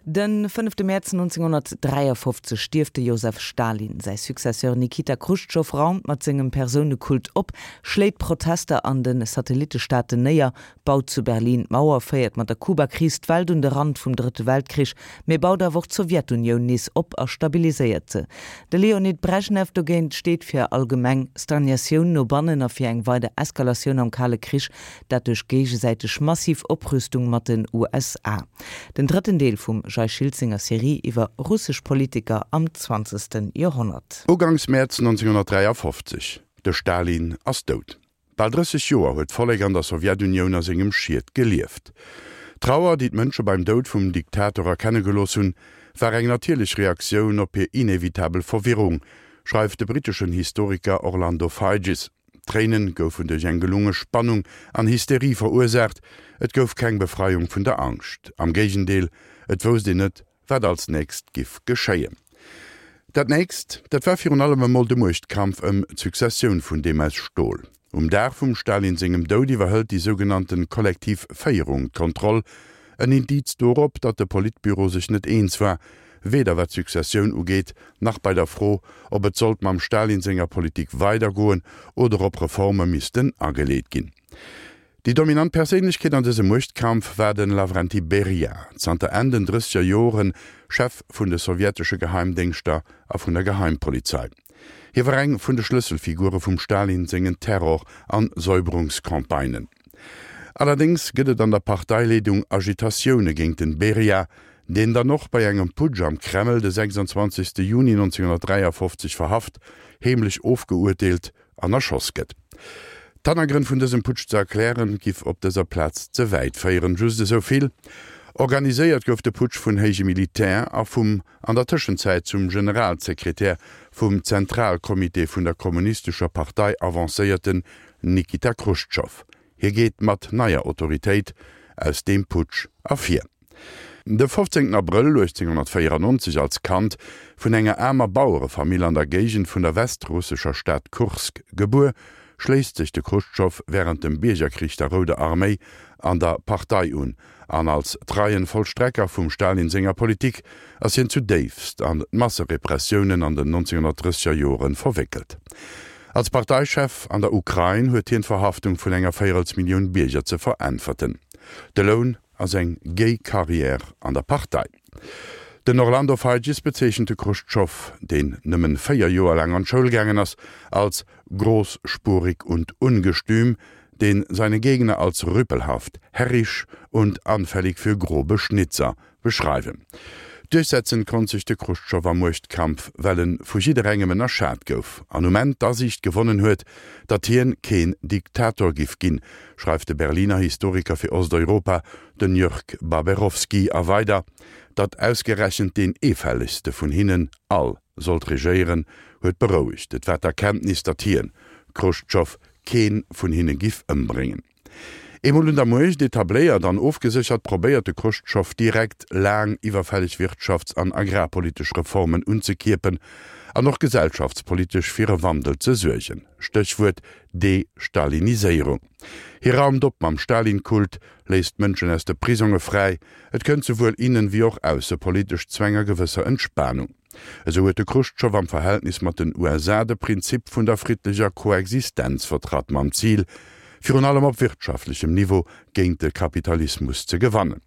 De fënnefte Mäerz 1953 stierft de Josef Stalin. Säi Successeur Nikita Chruschtschow raumt mat sengem Persounekult op, schléit Protester an de Satellittestaaten néier, baut zu Berlin d'Mauer, féiert mat der Kubakris d'Welt un de Rand vum Drëtte Weltkrich, mee baut awer och d'Sowjetunioun nees op a stabiliséiert se. De Leonid Brejnew dogéint steet fir allgemeng Stagnatioun no bannen a fir eng weider Eskalatioun am Kale Krich, dat duerch géigesäiteg massiv Oprüstung mat den USA. Den drëtten Deel vum Jay Schiltz senger Serie iwwer russesch Politiker am zwanzegste Joerhonnert. Uganks Mäerz 1953, De Stalin ass dout. Bal 30 Joer huet d'Vollek an der Sowjetunioun a sengem Schiet gelieft. D'Trauer, déi d'Mënsche beim Doud vum Diktator erkenne gelooss hunn, war eng natierlech Reaktioun op hir inevitabel Verwirrung, schreift de britteschen Historiker Orlando Figes. D'Tréinen goufen duerch eng gelunge Spannung an Hysterie verursaacht, et gouf keng Befreiung vun der Angscht. Am Géigendeel, et wousst een net, wat als nächst giff geschéien. Dat nächst, dat war virun allem emol de Muechtkampf ëm d'Successioun vun deem aus Stol. Um Dag vum Stalin sengem Doud iwwerhëlt déi sougenannten kollektiv Féierung d'Kontroll, en Indiz dorop, datt de Politbüro sech net eens war, weder wat d'Successioun ugeet, nach bei der Fro, ob et sollt mam Stalin senger Politik weidergoen oder ob Reforme missten ageleet ginn. Déi dominant Perséinlechkeet an dësem Muechtkampf war de Lavrenti Beria, zanter Enn den drësseger Joren Chef vun de sowjetesche Geheimdéngschter a vun der Geheimpolizei. Hie war eng vun de Schlësselfigure vum Stalin sengen Terror an Säuberungscampagnen. Allerdéngs gëtt et an der Parteileedung Agitatioune géint den Beria, deen dann och bei engem Putsch am Kreml de 26 Juni 1953 verhaft, heemlech ofgeurteelt an erschoss gëtt. D'Hannergrënn vun dësem Putsch ze erklären, giff op dëser Plaz ze wäit féieren. Just esou vill, Organiséiert gouf de Putsch vun héije Militär a vum an der Tëschenzäit zum Generalsekretär vum Zentralcomité vun der Kommunistescher Partei avancéierten Nikita Chruschtschow. Hie geet mat neier Autoritéit aus deem Putsch ervir. De 15 Abrëll 1894, als Kand vun enger aarmer Bauerefamill an der Géigend vun der westrussescher Stad Kursk gebuer, schléisst sech de Chruschtschow wärend dem Biergerkrich der Rouder Arméi an der Partei un an als treien Vollstrecker vum Stalin senger Politik ass hien zudéifst an d'Masserepressiounen an den 1930er Joren verwéckelt. Als Parteichef an der Ukrain huet hien d'Verhaftung vun enger Véierelsmillioun Bierger ze veräntwerten. De Loun ass eng géi Carrière an der Partei. Den Orlando Figes bezeechent de Chruschtschow, deen nëmmen 4 Joer laang an d'Schoul gaangen ass, als großspurig und ungestüm, den seine Gegner als rüpelhaft, herrisch und anfällig für grobe Schnitzer beschreiwen. Duerchsetzen konnt sech de Chruschtschow am Muechtkampf, well en vu jidderengem ënnerschat gouf an um Enn d'Asiicht gewonnen huet, datt hien keen Diktator giff ginn, schreift de Berliner Historiker fir Osteuropa, den Jörg Baberowski, a weider, datt ausgerechent deen eefällegste vun hinnen all sollt regéieren, huet berouegt. Et war d'Erkenntnis, datt hien, Chruschtschow, keen vun hinne giff ëmbréngen. Eemol un der Muecht etabléiert an ofgeséchert, probéiert de Chruschtschow direkt laang iwwerfälleg wirtschafts an agrarpolitesch Reformen unzekierpen an och gesellschaftspolitesch fir e Wandel ze suergen, Stéchwuert Destaliniséierung. Hie raumt op mam Stalin-Kult, léisst d'Mënschen aus de Prisonge fräi, et kënnt souwuel innen wéi och aussepolitesch zu enger gewësser Entspanung. Esou huet de Chruschtschow am Verhältnis mat den USA de Prinzip vun der friddlecher Koexistenz vertratt, mam Zil, virun allem op wirtschaftlechem Niveau géint de Kapitalismus ze gewannen.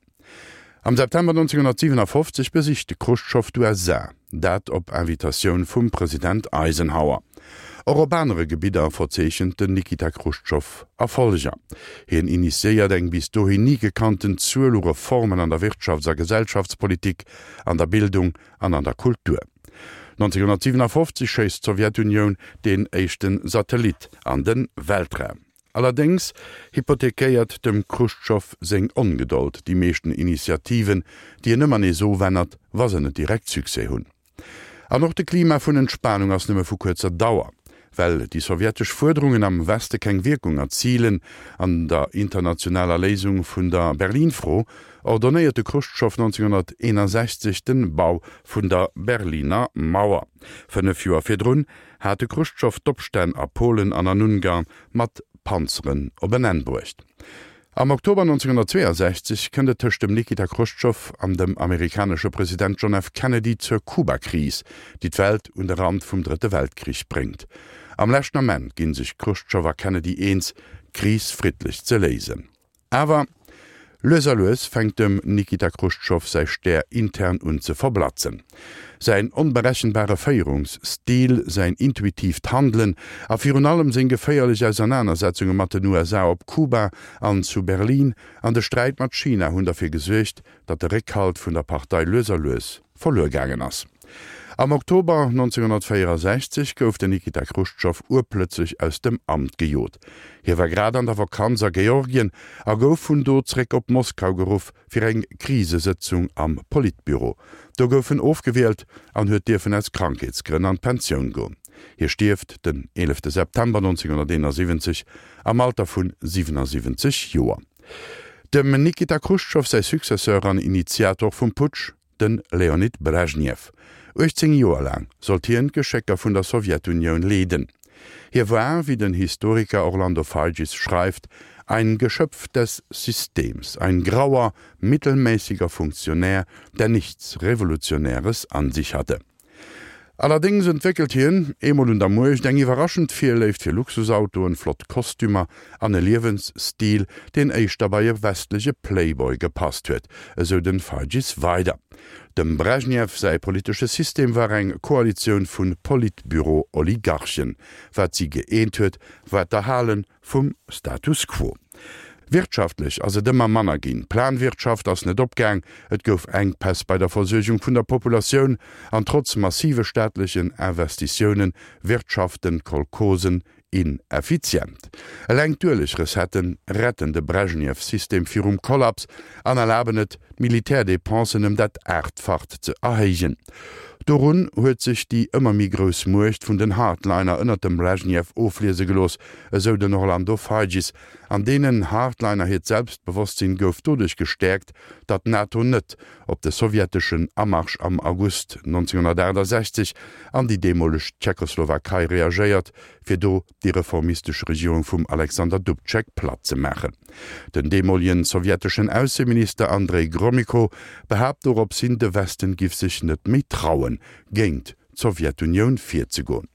Am September 1957 besicht de Chruschtschow d'USA, dat op Invitatioun vum President Eisenhower. Och op anere Gebidder verzeechent den Nikita Chruschtschow Erfolleger. Hien initiéiert eng bis dohin ni gekannten Zuel u Reformen an der Wirtschafts a Gesellschaftspolitik, an der Bildung an an der Kultur. 1957 schéisst d'Sowjetunioun deen éischte Satellit an de Weltraum. Allerdéngs hypothekéiert dem Chruschtschow seng Ongedold déi meeschten Initiativen, déi en ëmmer nees ofännert, wa se net direkt Succès hunn. An och de Klima vun Entspanung ass nëmme vu kuerzer Dauer. Well déi sowjetesch Fuerderungen am Weste keng Wierkung erzilen an der internationaler Léisung vun der Berlin-Fro, ordonnéiert de Chruschtschow 1961 den Bau vun der Berliner Mauer. 5 Joer virdrun hat de Chruschtschow d'Opstänn a Polen an an Ungarn mat Panzeren op en Enn bruecht. Am Oktober 1962 kënnt et tëscht dem Nikita Chruschtschow an dem amerikanesche President John F. Kennedy zur Kuba-Kris, déi d'Welt un de Rand vum Drëtte Weltkrich bréngt. Am leschten Ament ginn sech Chruschtschow a Kennedy eens, d'Kris friddlech ze léisen. Awer lues a lues fänkt dem Nikita Chruschtschow säi Stär intern un ze verblatzen. Säin onberechenbare Féierungsstil, säin intuitiivt Handelen a virun allem seng geféierlech Ausernanersetzunge mat den USA op Kuba an zu Berlin an de Sträit mat China hunn derfir gesuergt, datt de Réckhalt vun der Partei lues a lues verluer gaangen ass. Am Oktober 1964 gouf den Nikita Chruschtschow urplötzlech aus dem Amt gejot. Hie war grad an der Vakanz a Georgien a gouf vun do zréck op Moskau geruff fir eng Krisesëtzung am Politbüro. Do gouf en ofgewielt an huet dierfen aus Krankheetsgrënn an d'Pensioun goen. Hie stierft den 11 September 1971 am Alter vun 77 Joer. Dem Nikita Chruschtschow säi Successeur an Initiator vum Putsch, de Leonid Brezhnev. 18 Joer laang sollt hien d'Geschécker vun der Sowjetunioun leeden. Hie war, wéi den Historiker Orlando Figes schreift, ein Geschöpf des Systems, ein grauer, mittelmäßiger Funktionär, der nichts Revolutionäres an sich hatte. Allerdéngs entwéckelt hien, eemol un der Muecht, eng iwwerraschend Virléift fir Luxusautoen, flott Kostümer an e Liewensstil, deen éischter bei e westleche Playboy gepasst huet, esou den Feigis weider. Dem Brezhnev säi politesche System war eng Koalitioun vu Politbüro-Oligarchen. Wat si gëeent huet, war d'Erhale Vum Status quo. Wirtschaftlech ass et ëmmer manner ginn, d'Planwirtschaft ass net opgaang, et gouf Enkpäss bei der Versuergung vun der Populatioun an trotz massive staatlechen Investitioune wirtschaften d'Kolchosen ineffizient. Eleng d'Uelegrecettë retten de Brezhnev-System virum Kollaps an erlaben et, d'Militärdepensen ëm dat Aachtfacht ze erhéijen. Dorun huet sech déi ëmmer méi grouss Muecht vun den Hardliner ënnert dem Brezhnev ofliese gelooss, esou den Orlando Figes. An deenen Hardliner hiert Selbstbewosstsinn gouf doduerch gestäerkt, datt d'NATO net op de sowjeteschen Amarsch am August 1968 an déi deemoleg Tschechoslowakei reagéiert, fir do déi reformistesch Regierung vum Alexander Dubček platt ze maachen. Den deemolegen sowjeteschen Ausseminister Andrei Gromyko behaapt dorops hin, de Westen giff sech net méi trauen, géint d'Sowjetunioun virzegoen.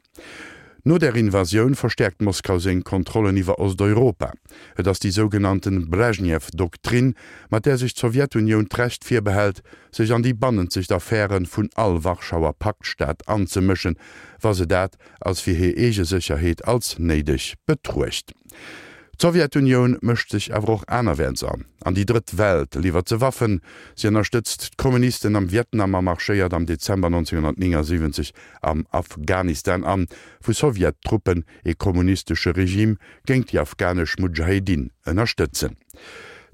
No der Invasioun verstäerkt Moskau seng Kontrollen iwwer Osteuropa. Et ass déi sougenannten Brezhnev-Doktrin, mat där sech d'Sowjetunioun d'Recht virbehält, sech an déi bannenzegt Affäre vun all Warschauer Paktstaat anzemëschen, wa se dat als fir hir eege Sécherheet als néideg betruecht. D'Sowjetunioun mëscht sech awer och anerwäerts an. An déi Drëtt Welt liwwert se Waffen, si ënnerstëtzt d'Kommunisten am Vietnam a marschéiert am Dezember 1979 am Afghanistan an, wou Sowjettruppen ee kommunistesche Regime géint déi afghanesch Mudschahedin ënnerstëtzen.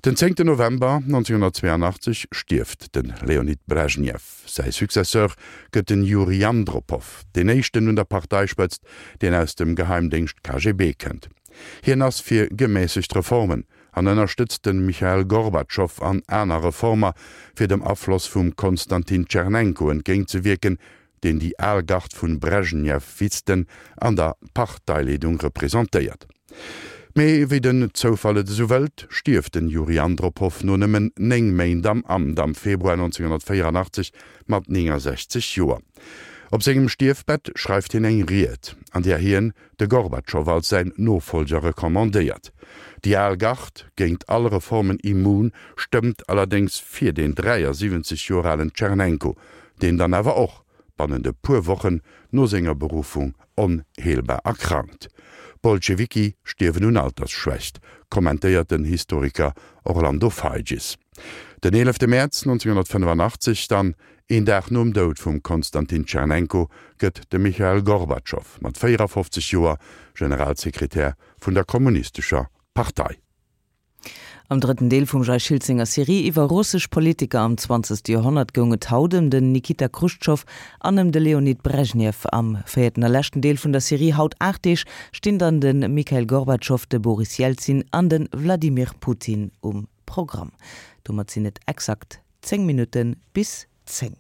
Den zéngten November 1982 stierft de Leonid Brezhnev. Säi Successeur gëtt den Juri Andropow, deen éischten un der Parteispëtzt, deen aus dem Geheimdéngscht KGB kënnt. Hien ass fir gemässegt Reformen an ënnerstëtzt de Michail Gorbatschow an aner Reformer, fir dem Afloss vum Konstantin Tschernenko entgéintzewierken, deen déi al Gard vun Brezhnevisten an der Parteileedung representéiert. Mee wéi den Zoufall et esou wëllt, stierft den Juri Andropow no nëmmen 9 Méint am Amt am Februar 1984 mat 69 Joer. Op sengem Stierfbett schreift hien eng Ried, an där hien de Gorbatschow als säin Nofollger recommandéiert. Déi al Gard, géint all Reformen immun, stëmmt allerdéngs fir deen 73 Joer alen Tschernenko, deen dann awer och bannent e puer Wochen no senger Beruffung onheelbar erkrankt. D'Bolschewiki stierwen un Altersschwächt, kommentéiert den Historiker Orlando Figes. Den 11 Mäerz 1985 dann, een Dag nom Doud vum Konstantin Tschernenko, gëtt de Michail Gorbatschow mat 54 Joer Generalsekretär vun der Kommunistescher Partei. Am drëtten Deel vum Jay Schiltz senger Serie iwwer russesch Politiker am zwanzegste Joerhonnert goung et haut ëm den Nikita Chruschtschow an ëm de Leonid Brezhnev. Am véierten a leschten Deel vun der Serie haut 8 Deeg stinn dann de Mikhail Gorbatschow, de Boris Jelzin an de Wladimir Putin um Programm. Domat sinn et exakt 10 Minutte bis 10.